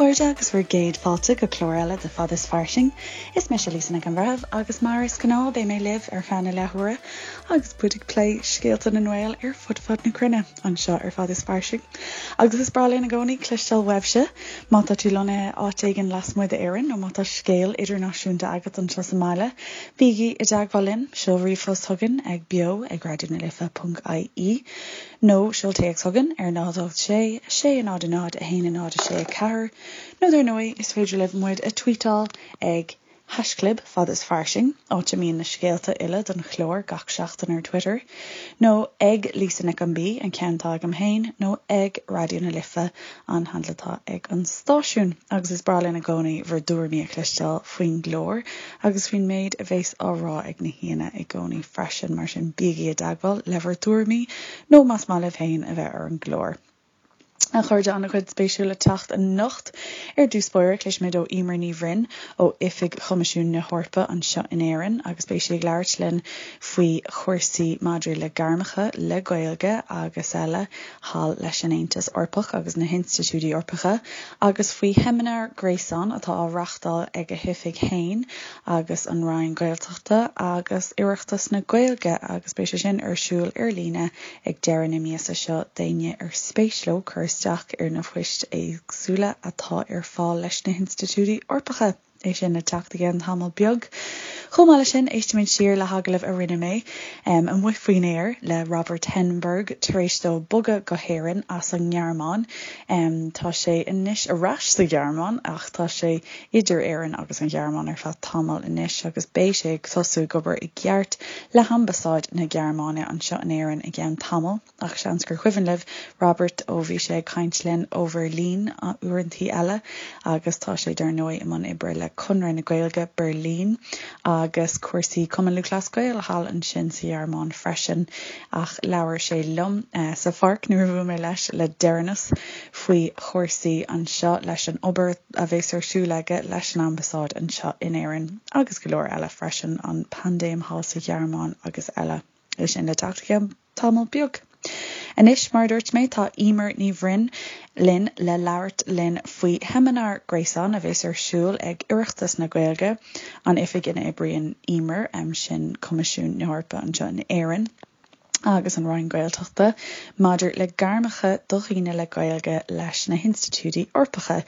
chairde agus bhur gcéad fáilte go clár eile de Fad is Fairsing. Is mise Lisa Nic an Bhreithimh agus mar is gnáth beidh mé libh ar feadh na leathuaire agus muid ag plé scéalta na nGael ar fud fad na cruinne anseo ar Fad is Fairsing. Agus is breá linn i gcónaí cloisteáil uaibhse má tá tú lonnaithe áit éigin lasmuigh d'Éirinn nó má tá scéal idirnáisiúnta agat anseo sa mbaile, bígí i dteagmháil linn, seol ríomhphost chugainn ag beo ag raidionalife.ie. Nó seol téacs chugainn ar 0 8 6 6 0 0 1 0 6 4 nó dar ndóigh is féidir libh muid a tweetáil ag haischlib fad is fairsing, áit a mbíonn na scéalta uile don chlár gach seachtain ar Twitter, nó ag Lisa Nic an B, an ceann atá agam féin, nó ag Raidió na Life, an handle atá ag an stáisiún. Agus is breá linn i gcónaí bhur dtuairimí a chloisteáil faoin gclár. agus faoin méid a bheas á rá ag na haíonna i gcónaí freisin, mar sin bígí i dteagmháil le bhur dtuairimí nó más maith libh féin a bheith ar an gclár. A chairde, an-chuid spéisiúil le teacht anocht. Ar dtús báire, cloisfimid ó Emer Ní Bhroin ó Oifig Choimisiún na hEorpa anseo in Éirinn agus beidh sí ag labhairt linn faoi chúrsaí maidir le gairmeacha le Gaeilge agus eile thall leis an Aontas Eorpach agus na hinstitiúidí Eorpacha agus faoi sheimineár gréasáin atá á reáchtáil ag a hoifig féin agus an Roinn Gaeltachta agus Oireachtas na Gaeilge agus beidh sé sin ar siúl ar líne ag deireadh na míosa seo d'éinne ar spéis leo cur isteach ar na poist éagsúla atá ar fáil leis na hinstitiúidí Eorpacha. É sin le teacht i gceann tamall beag. Chomh maith leis sin, éistfimid siar le hagallamh a rinne mé amuigh faoin aer le Robert Henneberg tar éis dó bogadh go hÉirinn as an nGearmáin. Tá sé anois ar ais sa Ghearmáin ach tá sé idir Éirinn agus an Ghearmáin ar feadh tamaill anois agus beidh sé ag tosú ag obair i gceart le hAmbasáid na Gearmáine anseo in Éirinn i gceann tamaill. Ach seans gur cuimhin libh Robert ó bhí sé ag caint linn ó Bheirlín uaireantaí eile agus tá sé dar ndóigh i mbun oibre le Conradh na Gaeilge Beirlín agus cúrsaí Cumann Lúthchleas Gael thall ansin sa Ghearmáin freisin. Ach labhair sé liom sa pháirc nuair a bhuail mé leis le deireanas faoi chúrsaí anseo leis an obair a bheas ar siúl aige leis an Ambasáid anseo in Éirinn agus go leor eile freisin, an paindéim thall sa Ghearmáin agus eile. É sin le teacht i gceann tamall beag. Anois, mar a dúirt mé, tá Emer Ní Bhroin linn le labhairt linn faoi sheimineár gréasáin a bheas ar siúl ag Oireachtas na Gaeilge, an oifig ina oibríonn Emer, sin Coimisiún na hEorpa anseo in Éirinn agus an Roinn Gaeltachta, maidir le gairmeacha do dhaoine le Gaeilge leis na hinstitiúidí Eorpacha.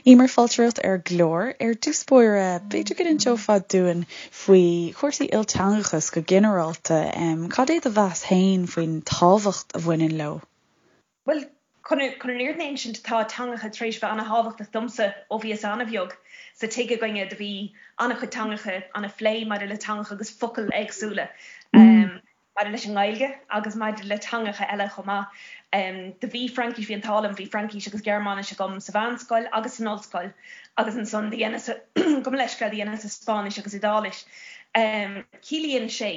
Emer, fáilte romhat ar an gclár. Ar dtús báire, b'fhéidir go n-inseofá dúinn faoi chúrsaí ilteangachas go ginearálta, cad é do mheas féin faoin tábhacht a bhaineann leo? Bhuel, chun an fhírinne a insint, tá teangacha tar éis bheith ana-thábhachtach domsa ó bhíos ana-bheag. Sa tigh againne do bhí ana-chuid teangacha, ana-phlé maidir le teangacha agus focail éagsúla. Maidir leis an nGaeilge agus maidir le teangacha eile chomh maith. Do bhí Fraincis, bhí an t-ádh liom, bhí Fraincis agus Gearmáinis agam sa mheánscoil agus san ollscoil agus ansan do dheineas, gabh mo leithscéal, do dheineas Spáinnis agus Iodáilis. Ciallaíonn sé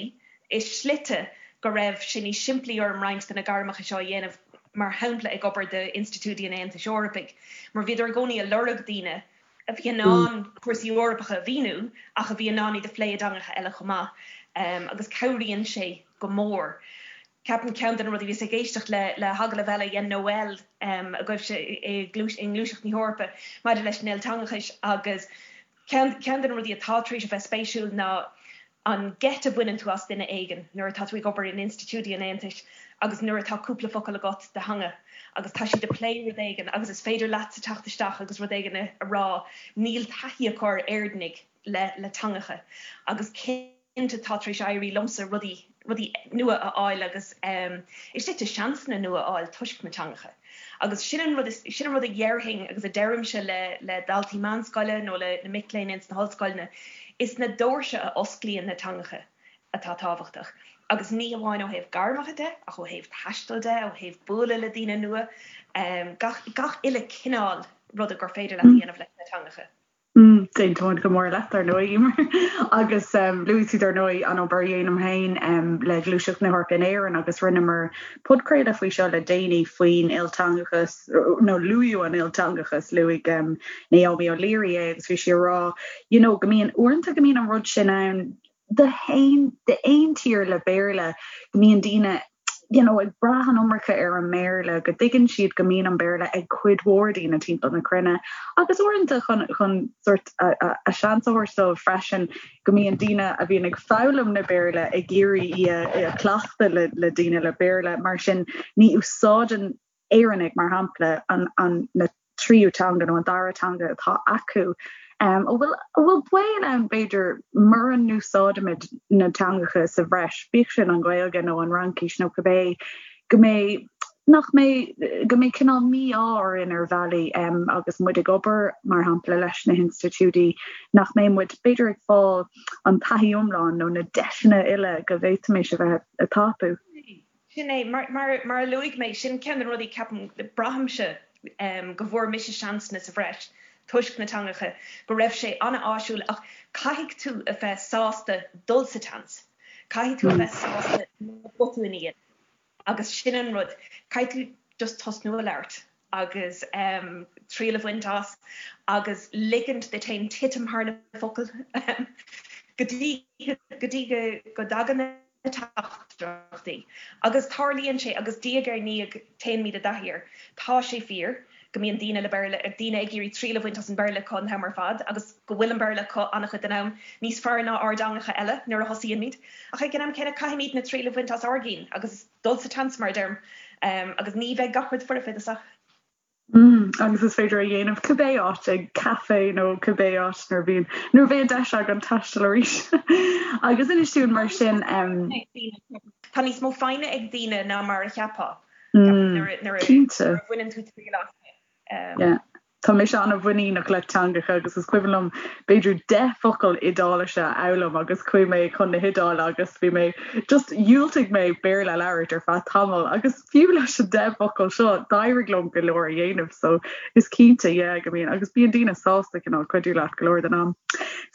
i slite go raibh sé níos simplí orm roinnt de na gairmeacha seo a dhéanamh, mar shampla ag obair d'institiúidí an Aontais Eorpaigh, mar bhíodar i gcónaí ag lorg daoine a bhí in ann cúrsaí Eorpacha a mhíniú ach a bhí in ann iad a phlé i dteangacha eile chomh maith agus cabhraíonn sé go mór. Ceapaim ceann de na rudaí, bhíos ag éisteacht le le hagallamh eile a dhein Noel agaibhse i nGluaiseacht na hEorpa maidir leis an ilteangachais agus ceann ceann de na rudaí atá tar éis a bheith spéisiúil ná an geit a bhaineann tú as duine éigin nuair atá tú ag obair in institiúidí an Aontais agus nuair atá cúpla focal agat de theanga agus tá siad ag plé rud éigin agus is féidir leatsa teacht isteach agus rud éigin a rá, níl taithí acu ar Éireannaigh le le teangacha agus cinnte tá tar éis éirí liomsa rudaí rudaí nua a fháil agus i slite seansanna nua a fháil toisc na teangacha. Agus sin an rud, sin an rud a dhéarfainn agus a deirimse le le daltaí meánscoile nó le na mic léinn ins na hollscoileanna, is na doirse a osclaíonn na teangacha atá tábhachtach. Agus ní hamháin ó thaobh gairmeacha de, ach ó thaobh taistil de, ó thaobh bualadh le daoine nua, gach gach uile cineál ruda gur féidir leat a dhéanamh leis na teangacha. Aontaím go mór leat, dar ndóigh, Emer. Agus luaigh tú, dar ndóigh, an obair a dhéanaim féin le Gluaiseacht na hEorpa in Éirinn agus rinneamar podchraoladh faoi seo le déanaí faoin ilteangachas, nó luadh an ilteangachas, luaigh Naomi O'Leary é agus bhí sí ag rá, you know, go mbíonn, uaireanta go mbíonn an rud sin ann d'aon tír le Béarla, go mbíonn daoine. you know, ag brath an iomarca ar an mBéarla, go dtuigeann siad go mbíonn an Béarla ag cuid mhór daoine timpeall na cruinne agus uaireanta chun chun sort a, a, a seans a thabhairt dóibh freisin go mbíonn daoine a bhíonn ag foghlaim na Béarla ag iarraidh í a, a chleachtadh le, le daoine le Béarla mar sin ní úsáideann Éireannaigh, mar shampla, an, an, na tríú teanga nó an dara teanga atá acu. An bhfuil, an bhfuil baol ann, b'fhéidir, mura n-úsáidimid na teangacha sa bhreis, bíodh sin an Ghaeilge nó an Fhraincis nó cibé, go mbeidh, nach mbeidh, go mbeidh cineál mí-ádh orainn ar bhealaí agus muid ag obair, mar shampla, leis na hinstitiúidí, nach mbeidh muid, b'fhéidir, ag fáil an taithí iomlán nó na deiseanna uile go bhféadfaimis a bheith ag tapú. Sin é, mar a luaigh mé, sin ceann de na rudaí, ceapaim, braithimse go bhfuair mise seansanna sa bhreis toisc na teangacha, go raibh sé an-áisiúil ach caithfidh tú a bheith sásta dul sa tseans, caithfidh tú a bheith sásta na botúin a dhéanamh agus sin an rud, caithfidh tú just tosnú a labhairt agus triail a bhaint as agus ligint duit féin titim thar na focail go dtí go dtí go dtagann na teachtaireachtaí. Agus tarlaíonn sé, agus diaidh ar ndiaidh téimid i dtaithí air. Tá sé fíor go mbíonn daoine le Béarla, daoine ag iarraidh triail a bhaint as an Béarla acu an t-am ar fad agus go bhfuil an Béarla acu an-chuid den am níos fearr ná ár dteangacha eile nuair a thosaíonn muid. Ach ag an am céanna caithfimid na triail a bhaint as ár gcinn agus dul sa tseans mar a deirim. Agus ní bheidh gach rud foirfe i dtosach. Agus is féidir a dhéanamh cibé áit, ag caife nó cibé áit nuair a bhíonn, nuair a bheidh an deis againn taisteal arís. Agus inis dúinn mar sin. Tá níos mó foighne ag daoine ná mar a cheapfá, nuair a bhaineann tú triail as. Yeah. Tá mise an-mhuiníneach le teangacha agus is cuimhin liom b'fhéidir 10 focal Iodáilise a fhoghlaim agus chuaigh mé chun na hIodáile agus bhí mé just dhiúltaigh mé Béarla a labhairt ar feadh tamaill agus fiú leis an 10 bhfocal seo d'éirigh liom go leor a dhéanamh so is cinnte yeah go mbíonn agus bíonn daoine sásta cineál cuidiú leat go leor den am.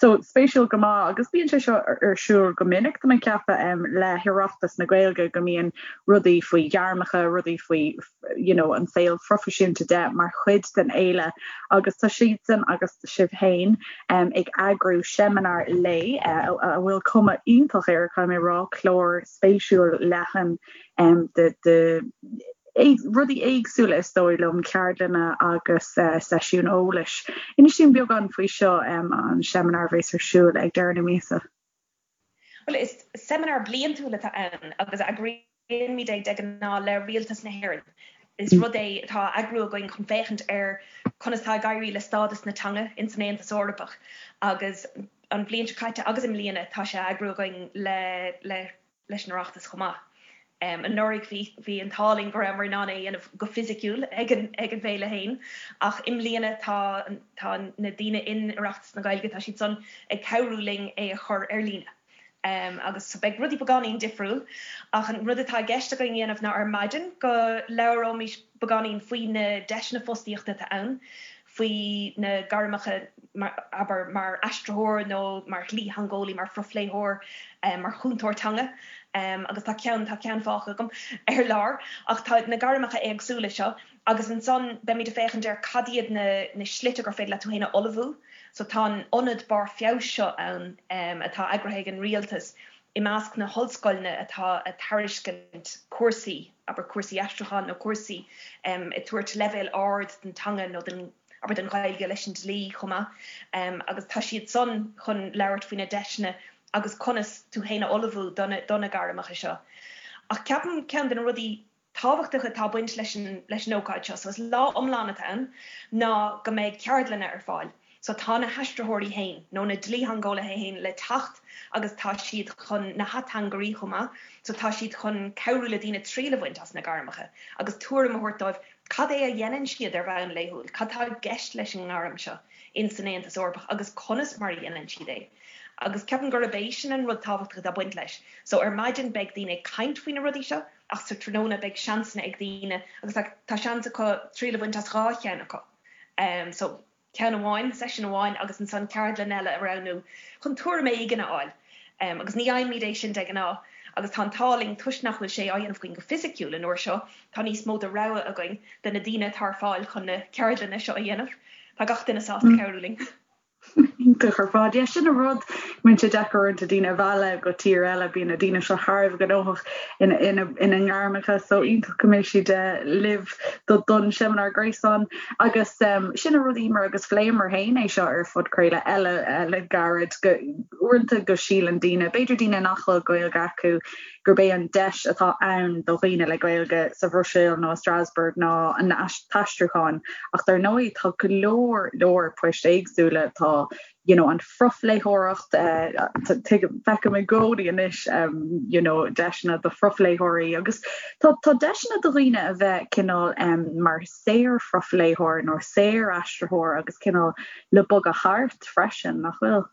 So spéisiúil go maith agus bíonn sé seo ar siúl go minic tá mé ag ceapadh le hOireachtas na Gaeilge go mbíonn rudaí faoi ghairmeacha, rudaí faoi you know an saol phroifisiúnta de mar chuid den fhéile agus tá siadsan agus sibh féin ag eagrú seimineár lae a bhfuil cuma iontach air caithfidh mé a rá, clár spéisiúil leathan de de rudaí éagsúla is dóigh liom, ceardlanna agus seisiúin eolais. Inis dúinn beagán faoi seo, an seimineár a bheas ar siúl ag deireadh na míosa. Bhuel, is seimineár bliantúil atá ann agus eagraímid é de ghnáth le Rialtas na hÉireann. Is rud é atá á eagrú againn chun féachaint ar conas atá ag éirí le stádas na teanga ins an Aontas Eorpach agus an bhliain seo caite agus i mbliana tá sé á eagrú againn le le leis an Oireachtas chomh maith. Anuraidh bhí bhí an t-ádh linn go rabhamar in ann é a dhéanamh go fisiciúil ag an ag an bhféile féin ach i mbliana tá tá na daoine in Oireachtas na Gaeilge tá siad san ag cabhrú linn é a chur ar líne. Agus so beidh rudaí beagáinín difriúil ach an rud atá i gceist againn a dhéanamh ná ar maidin go labhróimis beagáinín faoi na deiseanna fostaíochta atá ann, faoi na gairmeacha mar, abair, mar aistritheoir nó mar dhlítheangeolaí, mar phrofléitheoir, mar chúntóir teanga agus tá ceann, tá ceann fágtha agam ar lár ach tá na gairmeacha éagsúla seo Agus ansan beimid ag féachaint ar cad iad na na slite gur féidir leat tú féin a ullmhú. So tá an ionad barr feabhais seo ann atá eagraithe ag an rialtas i measc na hollscoileanna atá ag tairiscint cúrsaí, abair cúrsaí aistriúcháin nó cúrsaí ag tabhairt leibhéal ard den teanga nó den, abair den Ghaeilge leis an dlí chomh maith. Agus tá siad san chun labhairt faoi na deiseanna agus conas tú féin a ullmhú do na do na gairmeacha seo. Ach ceapaim ceann de na rudaí tábhachtach atá ag baint leis an leis an ócáid seo, so is lá iomlán atá ann, ná go mbeidh ceardlanna ar fáil. So tá na haistritheoirí féin, nó na dlítheangeolaithe féin le teacht agus tá siad chun, na hateangairí chomh maith, so tá siad chun cabhrú le daoine triail a bhaint as na gairmeacha agus tuairim a thabhairt dóibh cad é a dhéanann siad ar bhonn laethúil, cad tá i gceist leis an ngairm seo in san Aontas Eorpach agus conas mar a dhéanann siad é. Agus ceapaim gurb é sin an rud tábhachtach atá ag baint leis. So ar maidin beidh daoine ag caint faoi na rudaí seo, Ach sa tráthnóna beidh seansanna ag daoine agus tá seans acu triail a bhaint as 2 cheann acu. So ceann amháin, seisiún amháin agus ansan ceardlann eile a roghnú chun tuairim éigin a fháil. Agus ní fhaighimid é sin de ghnáth agus tá an t-ádh linn toisc nach bhfuil sé á dhéanamh againn go fisiciúil an uair seo, tá níos mó de rogha againn de na daoine atá ar fáil chun na ceardlanna seo a dhéanamh. Tá gach duine sásta cabhrú linn. Iontach ar fad. Yeah, sin an rud, bíonn sé deacair uaireanta daoine a mhealladh go tír eile, bíonn na daoine seo thar a bheith gnóthach ina, ina, ina ngairmeacha, so iontach go mbeidh siad libh do, don seimineár gréasáin. Agus sin an rud, Emer, agus phléamar féin é seo ar phodchraoladh eile le gairid, go, uaireanta go síleann daoine, b'fhéidir daoine nach bhfuil Gaeilge acu, gurb é an deis atá ann do dhaoine le Gaeilge sa Bhruiséil nó i Strasbourg ná an t-aistriúchán ach dar ndóigh tá go leor leor poist éagsúla, tá you know an phrofléitheoireacht, tuigim, feicim i gcónaí anois you know deiseanna do phrofléitheoirí agus tá tá deiseanna do dhaoine a bheith cineál mar saor-phrofléitheoir nó saor-aistritheoir agus cineál le bogadh thart freisin, nach bhfuil?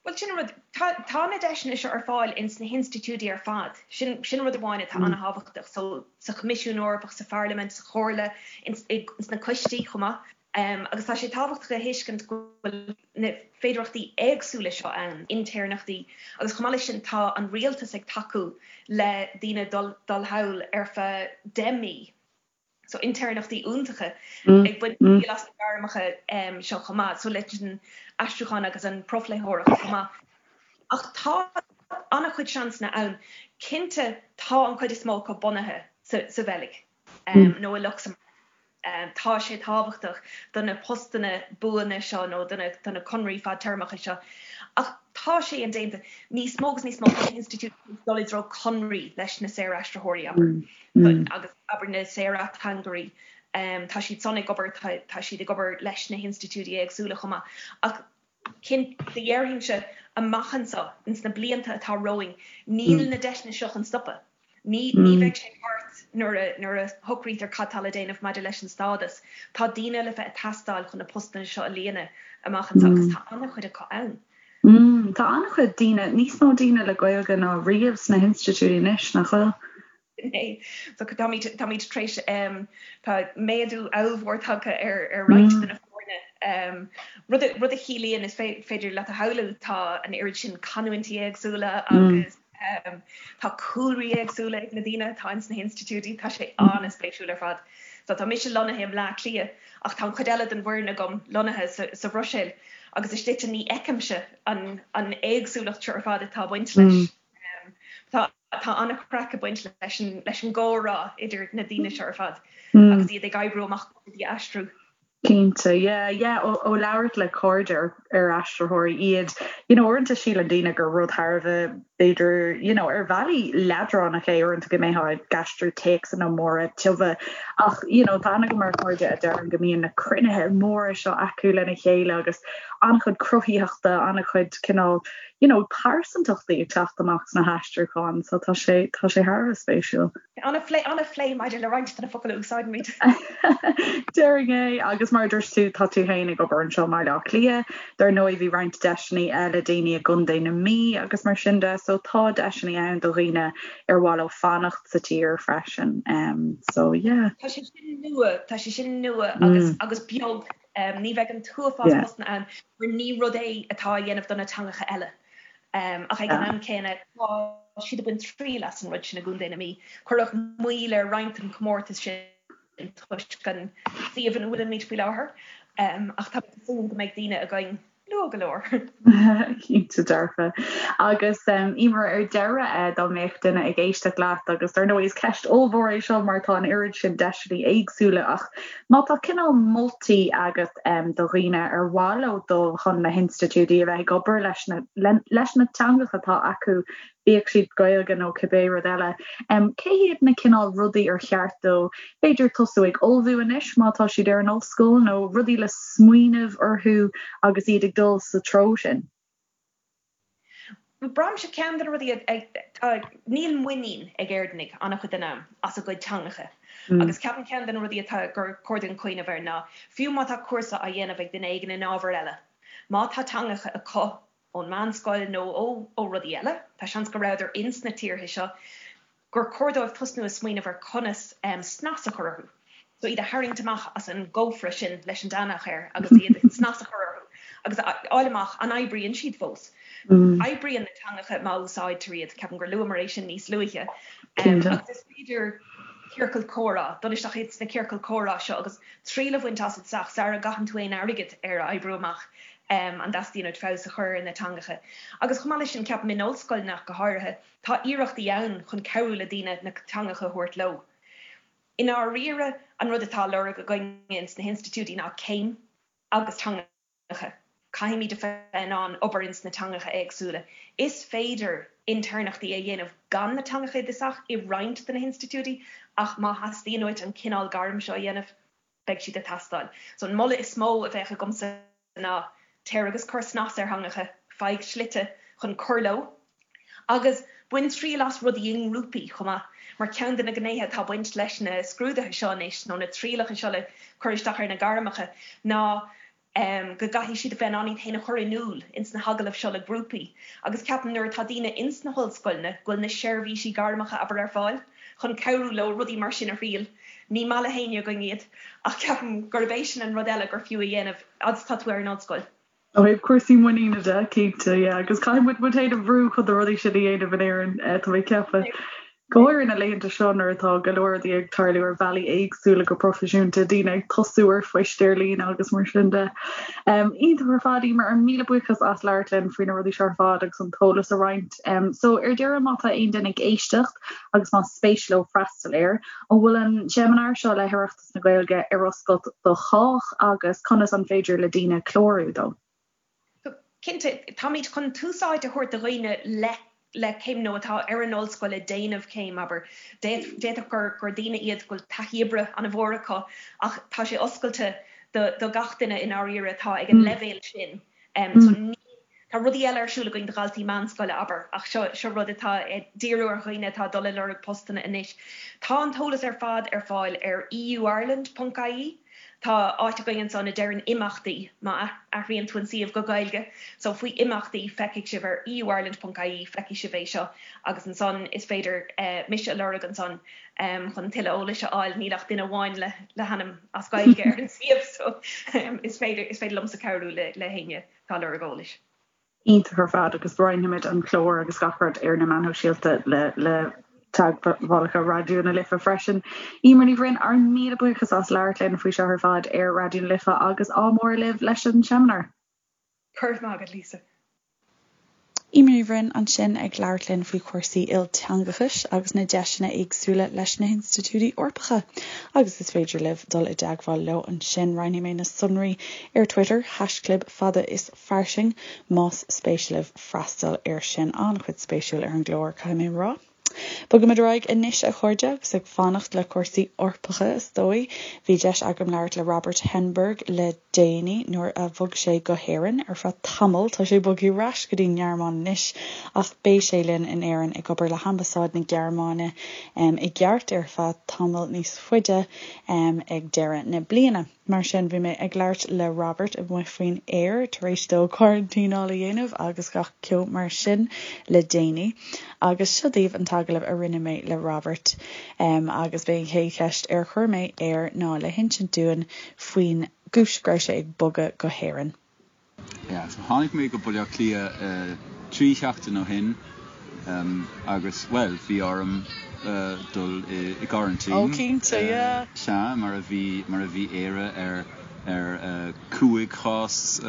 Bhuel, sin an rud. Tá, tá na deiseanna seo ar fáil ins na hinstitiúidí ar fad. Sin, sin rud amháin atá an-thábhachtach. So, sa Choimisiún Eorpach, sa Pharlaimint, sa Chomhairle, ins, ins na coistí chomh maith. Agus tá sé tábhachtach a thuiscint go bhfuil na féidearthachtaí éagsúla seo ann, intéirneachtaí, agus chomh maith leis sin tá an rialtas ag tacú le daoine dul, dul thall ar feadh 10 mí. So intéirneachtaí iontacha ag baint triail as na gairmeacha seo chomh maith, so leis an aistriúchán agus an profléitheoireacht chomh maith. Ach tá an-chuid seansanna ann. Cinnte tá an chuid is mó acu bunaithe sa Bheilg nó i Lucsamburg. Tá sé tábhachtach do na postanna buana seo nó do na conraí fadtéarmacha seo. Ach tá sé indéanta. Níos mó agus níos mó tá na hinstitiúidí ag dul i dtreo conraí leis na saoraistritheoirí, abair. agus abair na saor-ateangairí, tá siad san ag obair, tá siad ag obair leis na hinstitiúidí éagsúla chomh maith. Ach cinnte, déarfainnse, amach anseo, ins na blianta atá romhainn, níl na deiseanna seo chun stopadh. Ní ní bheidh sé thart nuair a nuair a shocraítear cad tá le déanamh maidir leis an stádas. Tá daoine le bheith ag teastáil chun na postanna seo a líonadh amach anseo agus tá an-chuid acu ann. Tá an-chuid daoine, níos mó daoine le Gaeilge ná riamh sna hinstitiúidí anois, nach bhfuil? So táimid táimid tar éis tá méadú ollmhór tagtha ar ar roinnt de na foirne. Rud a rud a chiallaíonn is féidir leat a shamhlú tá an oiread sin canúintí éagsúla agus tá cúlraí éagsúla ag na daoine atá ins na hinstitiúidí, tá sé an-spéisiúil ar fad. So tá mise lonnaithe i mBleá Cliath ach tá an chuid eile den bhfoireann agam lonnaithe sa sa Bhruiséil agus i slite ní fheicimse an an éagsúlacht seo ar fad atá ag baint leis. Tá Tá an-chraic ag baint leis an leis an gcomhrá idir na daoine seo ar fad agus iad ag oibriú amach rudaí a aistriú. Cinnte, yeah, yeah, ó ó labhairt le cairde ar ar aistritheoirí iad, you know, uaireanta síleann daoine gur rud thar a bheith b'fhéidir, you know, ar bhealaí leadránach é uaireanta go mbeifeá ag aistriú téacsanna móra tiubha ach, you know, tá aithne agam ar chairde a deireann go mbíonn na cruinnithe móra seo acu lena chéile agus an-chuid cruthaitheachta, an-chuid cineál you know, pearsantachtaí ag teacht amach sna haistriúcháin, so tá sé, tá sé thar a bheith spéisiúil. An-phlé, an-phlé maidir le roinnt de na focail a úsáidimid. Déarfainn é, agus mar a dúirt tú, tá tú féin ag obair anseo i mBaile Átha Cliath, dar ndóigh bhí roinnt deiseanna eile daoine i gContae na Mí agus mar sin de, so tá deiseanna ann do dhaoine ar mhaith leo fanacht sa tír freisin, so yeah. Tá sé sin nua, tá sé sin nua agus, agus beag. Ní bheidh an t-uafás postanna ann mar ní rud é atá á dhéanamh do na teangacha eile. Ach ag an am céanna, tá siad ag baint triail as an rud sin i gContae na Mí. Cuireadh moill ar roinnt den chomórtas sin toisc an suíomh ina bhfuilimid faoi láthair, ach tá mé ag súil go mbeidh daoine againn luath go leor. Cinnte dearfa. Agus Emer, ar deireadh, dá mbeadh duine ag éisteacht leat, agus dar ndóigh is ceist ollmhór é seo mar tá an oiread sin deiseanna éagsúla, ach má tá cineál moltaí agat do dhaoine ar mhaith leo dul chun na hinstitiúidí a bheith ag obair leis na leis na teangacha atá acu, bíodh siad Gaeilge nó cibé rud eile. Cé hiad na cineál rudaí ar cheart dóibh b'fhéidir tosú ag ullmhú anois má tá siad ar an ollscoil nó rudaí le smaoineamh orthu agus iad ag dul sa treo sin? Braithimse ceann de na rudaí atá, níl muinín ag Éireannaigh an-chuid den am as a gcuid teangacha agus ceapaim ceann de na rudaí atá gur chóir dúinn cuimhneamh air ná fiú má tá cúrsa á dhéanamh ag duine éigin in ábhar eile, má tá teangacha acu ón meánscoil nó ó rudaí eile, tá seans go rabhadar ins na tíortha seo, gur chóir dóibh tosnú ag smaoineamh ar conas snas a chur orthu. So iad a tharraingt amach as an gcófra sin leis an deannach air agus iad snas a chur orthu agus a fháil amach an oibríonn siad fós. Oibríonn na teangacha má úsáidtear iad, ceapaim gur luamar é sin níos luaithe. Agus is féidir. Ciorcal comhrá, dul isteach ins na ciorcail comhrá seo agus triail a bhaint asat isteach sara gcaitheann tú aon airgead ar oibriú amach an dteastaíonn uait feabhas a chur ar na teangacha. Agus chomh maith leis sin, ceapaim in ollscoileanna ach go háirithe, tá iarrachtaí ann chun cabhrú le daoine na teangacha a thabhairt leo. I ndáiríre, an rud atá á lorg againne ins na hinstitiúidí ná céim agus teangacha. Caithfimid a bheith in ann obair ins na teangacha éagsúla. Is féidir intéirneachtaí a dhéanamh gan na teangacha i dtosach i roinnt de na hinstitiúidí ach má theastaíonn uait an cineál gairm seo a dhéanamh, beidh siad ag teastáil. So an moladh is mó a bheadh agamsa ná téir agus cuir snas ar theangacha, faigh slite chun cur leo agus bain triail as rudaí i ngrúpaí chomh maith, mar ceann de na gnéithe atá ag baint leis na scrúduithe seo anois nó na trialacha seo le cur isteach ar na gairmeacha ná go gcaithfidh siad a bheith in ann iad féin a chur in iúl ins na hagallaimh seo le grúpaí agus ceapaim nuair atá daoine ins na hollscoileanna go bhfuil na seirbhísí gairmeacha abair ar fáil chun cabhrú leo rudaí mar sin a thriail. Ní maith le héinne againn iad ach ceapaim gurb é sin an rud eile gur fiú a dhéanamh agus tá tú ar an ollscoil. Ó thaobh cúrsaí muiníne de, cinnte, yeah, agus caithfidh muid muid féin a bhrú chun na rudaí sin a dhéanamh in Éirinn, tá mé ag ceapadh. Go háirithe na laethanta seo nuair atá go leor rudaí ag tarlú ar bhealaí éagsúla go proifisiúnta, daoine ag tosú ar phoist ar líne agus mar sin de. Iontach ar fad, Emer, míle buíochas as labhairt linn faoi na rudaí seo ar fad agus an t-eolas a roinnt. So ar deireadh má tá aon duine ag éisteacht agus más spéis leo freastal air, an bhfuil an seimineár seo le hOireachtas na Gaeilge ar oscailt do chách agus conas an féidir le daoine clárú dó? Cinnte, táimid chun tús áite a thabhairt do dhaoine le le céim nó atá ar an ollscoil ag déanamh céim, abair. D'fhéadfadh gur gur daoine iad go bhfuil taithí oibre an-mhór acu ach tá sé oscailte do do gach duine i ndáiríre atá ag an leibhéal sin. So ní, tá rudaí eile ar siúl againn do dhaltaí meánscoile, abair, ach seo seo rud atá ag díriú ar dhaoine atá ag dul ag lorg postanna anois. Tá an t-eolas ar fad ar fáil ar euireland ponc ie. Tá áit againn ansan a deireann imeachtaí, má athraíonn tú an suíomh go Gaeilge, so faoi imeachtaí feicfidh sibh ar euireland ponc ie feicfidh sibh é seo agus ansan is féidir mise a lorg ansan chun tuilleadh eolais a fháil, níl ach duine amháin le le hainm as Gaeilge ar an suíomh so is féidir is féidir liomsa cabhrú le le héinne atá ag lorg eolais. Iontach ar fad agus roinnfimid an clár agus gach rud ar na meáin shóisialta le le teagmhálacha Raidió na Life freisin. Emer Ní Bhroin, ár míle buíochas as labhairt linn faoi seo ar fad ar Raidió na Life agus ádh mór libh leis an seimineár. Go raibh maith agat, Lisa. Emer Ní Bhroin ansin ag labhairt linn faoi chúrsaí ilteangachais agus na deiseanna éagsúla leis na hinstitiúidí Eorpacha agus is féidir libh dul i dteagmháil leo ansin. Roinnfidh mé na sonraí ar Twitter, haischlib fada is fairsing, más spéis libh freastal air sin. An-chuid spéisiúil ar an gclár, caithfidh mé a rá. Bogaimid ar aghaidh anois, a chairde, agus ag fanacht le cúrsaí Eorpacha, is dóigh. Bhí deis agam labhairt le Robert Henneberg le déanaí nuair a bhog sé go hÉirinn ar feadh tamaill. Tá sé bogtha ar ais go dtí an nGearmáin anois, ach beidh sé linn in Éirinn ag obair le hAmbasáid na Gearmáine i gceart ar feadh tamall níos faide ag deireadh na bliana. Mar sin, bhí mé ag labhairt le Robert amuigh faoin aer tar éis dó coraintíneáil a dhéanamh agus gach ceo mar sin le déanaí. Agus seo daoibh an t-agallamh a rinne mé le Robert. Agus b'é an chéad cheist ar chuir mé air ná le hinsint dúinn faoin gcúis go raibh sé ag bogadh go hÉirinn. Yeah, so tháinig mé go Baile Átha Cliath 3 sheachtain ó shin agus, bhuel, bhí orm dul i gcoraintín. Oh, cinnte, yeah. Sea, mar a bhí, mar a bhí Éire ar, ar 5 chás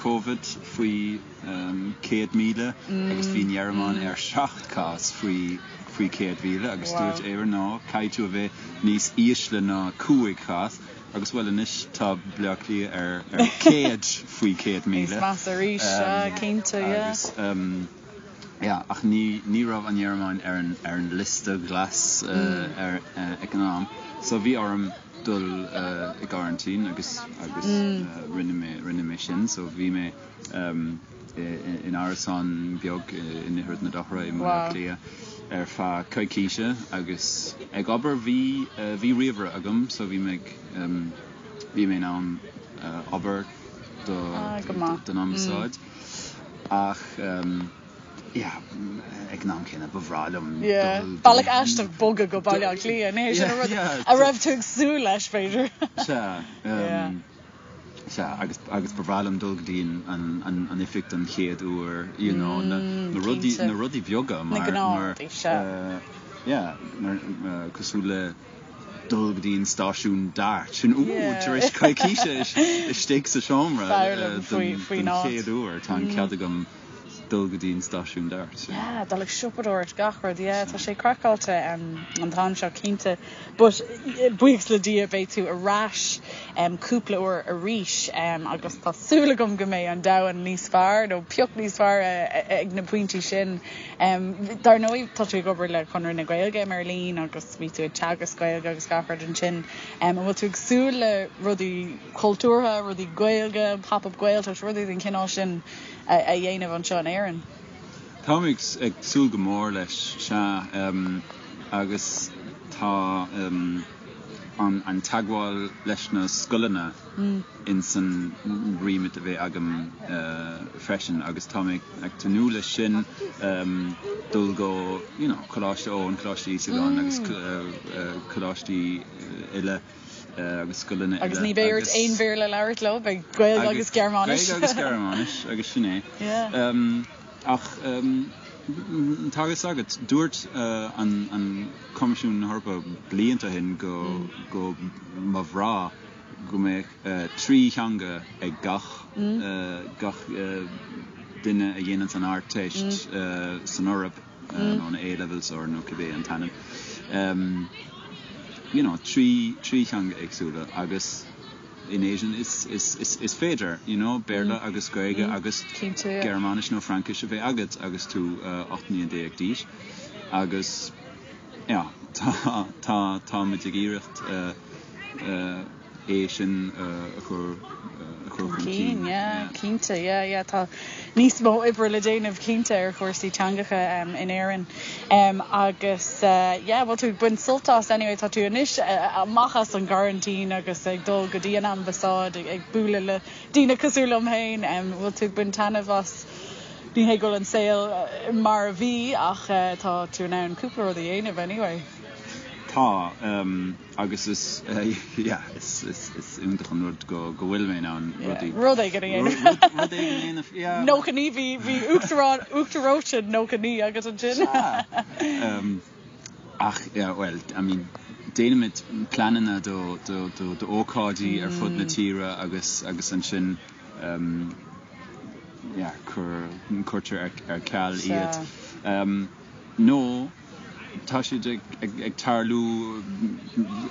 Covid faoi 100,000 agus bhí an Ghearmáin ar 7 cás faoi, faoi 100,000 agus dúirt Éire, no, caithfidh tú a bheith níos ísle ná 5 chás. Agus bhuel anois tá Baile Átha Cliath ar 100 faoi 100,000. Níos measa arís, sea, cinnte, yeah. Agus yeah, ach ní ní raibh an Ghearmáin ar an ar an liosta glas ar ag an am. So bhí orm dul i gcoraintín agus agus rinne mé rinne mé sin. So bhí mé in árasán beag in Ithread na Dothra i mBaile Átha Cliath ar feadh coicíse agus ag obair. Bhí bhí ríomhaire agam so bhí mé ag bhí mé in ann obair do don ambasáid ach yeah ag an am céanna ba bhreá liom dul Bealach aisteach bogadh go Baile Átha Cliath, ní hé sin an rud a raibh tú ag súil leis b'fhéidir. Sea. Sea, agus, agus ba bhreá liom dul go dtí an, an, an oifig don chéad uair, you know, na, na rudaí, na rudaí beaga mar, Na mar, gnáthrudaí, sea. yeah, cosúil le dul go dtí an stáisiún DART, sin, ooh, tar éis coicíse istigh sa seomra don chéad uair, tá an cead agam dul go dtí an stáisiún DART. Yeah, dul ag siopadóireacht, gach rud, yeah, tá sé craiceáilte an t-am seo cinnte. But buíochas le Dia beidh tú ar ais cúpla uair arís agus tá súil agam go mbeidh an domhan níos fearr nó pioc níos fearr ag na pointí sin. Dar ndóigh tá tú ag obair le Conradh na Gaeilge i mBeirlín agus bhí tú ag teagasc Gaeilge agus gach rud ansin. An bhfuil tú ag súil le rudaí cultúrtha, rudaí Gaeilge, Pop-up Gaeltacht, rudaí den chineál sin a dhéanamh anseo in Éirinn? Táim ag súil go mór leis, sea. Agus tá an teagmháil leis na scoileanna ins an remit a bheidh agam freisin agus tá mé ag tnúth leis sin, dul go you know Coláiste Eoin, Coláiste Íosagáin agus coláistí eile agus scoileanna eile. Agus ní bheidh ort aon Bhéarla a labhairt leo, beidh Gaeilge agus Gearmáinis. Gaeilge agus Gearmáinis agus sin é. Ach tá a fhios agat, dúirt an Coimisiún na hEorpa blianta ó shin go go mba bhreá go mbeadh 3 theanga ag gach gach duine a dhéananns an Ardteist san Eoraip, nó na A-levels or nó cibé an t-ainm. You know, 3 theanga éagsúla agus. in Éirinn is féidir, you know, Béarla agus Gaeilge agus Gearmáinis nó Fraincis a bheith agat agus tú 18 mbliana d'aois agus yeah, tá, tá, táimid ag iarracht é sin a chur, a chur chun cinn. Yeah, cinnte, yeah, yeah, tá níos mó oibre le déanamh cinnte ar chúrsaí teangacha in Éirinn. Agus yeah, bhfuil tú ag baint sult as anyway, tá tú anois amach as an gcoraintín agus ag dul go dtí an ambasáid ag bualadh le daoine cosúil liom féin, bhfuil tú ag baint taitneamh as, ní hé go bhfuil an saol mar a bhí ach tá tú in ann cúpla rud a dhéanamh anyway. Tá. Agus is, yeah, is, is, is iontach an rud go, go bhfuil mé in ann rudaí. Rud éigin a dhéanamh. Rud, rud éigin a dhéanamh, yeah. 99, bhí, bhí uachtarán, uachtar reoite 99 agat ansin. Sea. Ach, yeah, well, I mean, déanaimid pleananna do, do, do, d'ócáidí ar fud na tíre agus, agus ansin, yeah, cuir, cuirtear ar, ar ceal iad. Nó. Tá siad ag tarlú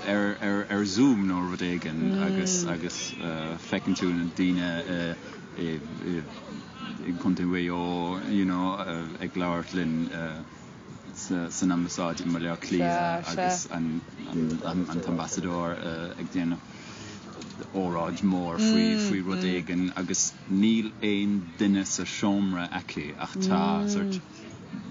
ar Zoom nó rud éigin agus agus feiceann tú na daoine i gContae Mhaigh Eo you know ag labhairt linn san ambasáid i mBaile Átha Cliath agus an t-ambasadóir ag déanamh óráid mhór faoi rud éigin agus níl aon duine sa seomra aici ach tá sort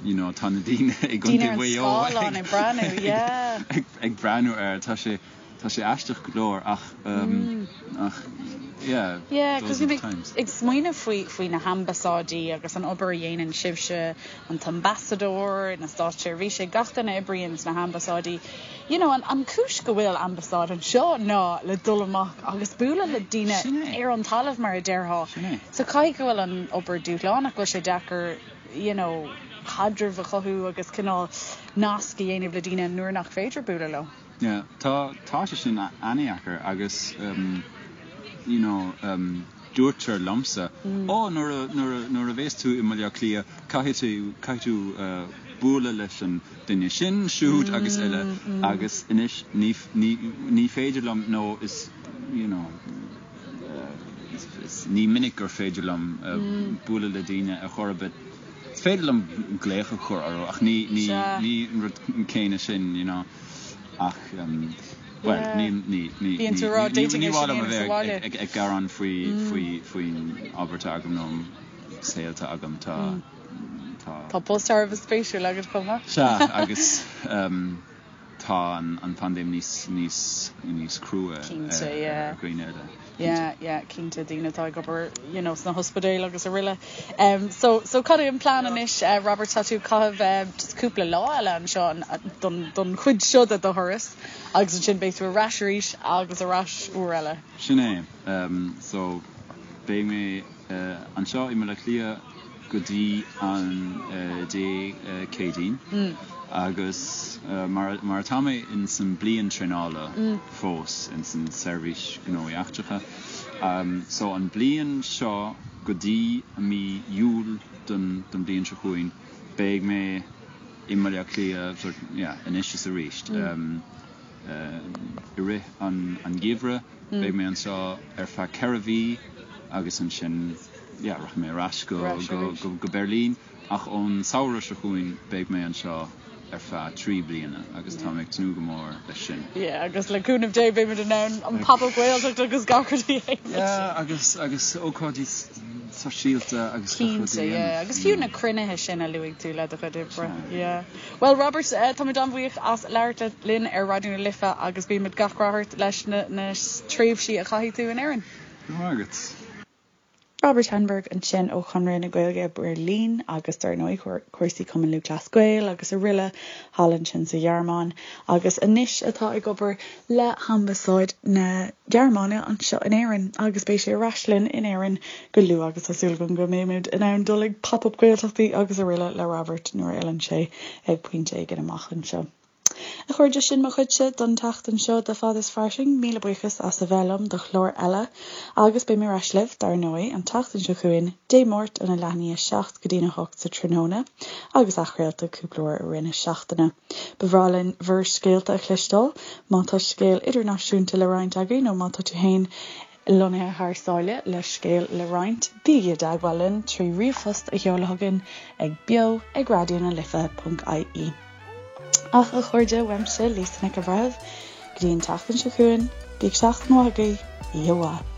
you know tá na daoine i gContae Mhaigh Eo ag breathnú yeah ag breathnú air tá sé tá sé aisteach go leor ach um, ach yeah yeah cos bhí mé ag smaoineamh faoi faoi na hambasáidí agus an obair a dhéanann sibhse an t-ambasadóir na státseirbhísigh gach duine a oibríonn sna hambasáidí you know an an cúis go bhfuil ambasáid anseo ná le dul amach agus bualadh le daoine ar an talamh mar a déarfá so caithfidh go bhfuil an obair dúshlánach go bhfuil sé deacair you know, caidreamh a chothú agus cineál nasc a dhéanamh le daoine nuair nach féidir bualadh leo. Yeah, tá, tá sé sin an-deacair agus um, you know, um, dúirtear liomsa, mm. ó nuair a, nuair a, nuair a bhéas tú i mBaile Átha Cliath caithfidh tú, caithfidh tú uh, bualadh leis an duine sin, siúd mm, agus eile mm. agus anois ní, ní, ní féidir liom nó is, you know, Ní minic gur féidir liom bualadh le daoine ar chor ar bith. Is féidir liom glaoch a chur orthu ach ní ní an rud céanna sin, you know. Ach, bhuel, ní ní ní ní mhaith liom a bheith ag gearán faoi faoi faoin obair atá agam nó an saol atá agam. Tá tá. Tá post thar a bheith spéisiúil agat chomh maith. Sea, agus. Tá an phaindéim níos níos níos crua ar dhaoine eile. Yeah, yeah, cinnte, daoine atá ag obair you know sna hospidéil agus araile. Um, so, so cad é an plean anois, uh, Robert, tá tú ag caitheamh uh, just cúpla lá eile anseo don, don chuid seo de do thuras agus ansin beidh tú ar ais arís agus ar ais uair eile. Sin é. Um, so, beidh mé uh, anseo i mBaile Átha Cliath. go dtí an Dé Céadaoin agus mar mar atá mé in san bliain traenála fós in san Seirbhís Gnóthaí Eachtracha so an bliain seo go dtí mí Iúil don don bliain seo chugainn beidh mé i mBaile Átha Cliath sort yeah anois is arís i rith an an gheimhreadh beidh mé anseo ar feadh 4 mhí agus ansin yeah rachaidh mé ar ais go go go go Beirlín ach ón samhradh seo chugainn beidh mé anseo ar feadh 3 bliana agus tá mé ag tnúth go mór leis sin. Yeah agus le cúnamh Dé beimid in ann an Pop-Up Gaeltacht agus gach rud a dhéanamh. Yeah agus agus ócáidí sóisialta agus gach rud a Cinnte yeah dhéanamh. agus fiú na cruinnithe sin a luaigh tú le do chuid oibre. Yeah. Bhuel Robert táimid an-bhuíoch as labhairt linn ar Raidió na Life agus guímid gach rath ort leis na na tréimhsí a chaithfidh tú in Éirinn. Go raibh maith agat. Robert Henneberg ansin ó Chonradh na Gaeilge Beirlín agus dar ndóigh cúrsaí Cumann Lúthchleas Gael agus araile thall ansin sa Ghearmáin agus anois atá ag obair le hAmbasáid na Gearmáine anseo in Éirinn agus beidh sé ar ais linn in Éirinn go luath agus tá súil agam go mbeimid in ann dul ag Pop Up Gaeltachtaí agus araile le Robert nuair a fhilleann sé ag pointe éigin amach anseo. A chairde, sin mo chuidse don tseachtain seo de Fad is Fairsing. Míle buíochas as a bheith liom do chlár eile agus beidh mé ar ais libh, dar ndóigh, an tseachtain seo chugainn, Dé Máirt óna leath i ndiaidh a 7 go dtí'n 8 sa tráthnóna agus athchraolta cúpla uair i rith na seachtaine. Ba bhreá linn bhur scéalta a chloisteáil, má tá scéal idirnáisiúnta le roinnt agaibh nó má tá tú féin lonnaithe thar sáile le scéal le roinnt, bígí i dteagmháil linn trí ríomhphost a sheoladh chugainn ag beo ag raidionalife.ie. Ach a chairde, uaimse, Lisa Nic an Bhreithimh, go dtí an tseachtain seo chugainn, bíodh seachtain mhaith agaibh, oíche mhaith.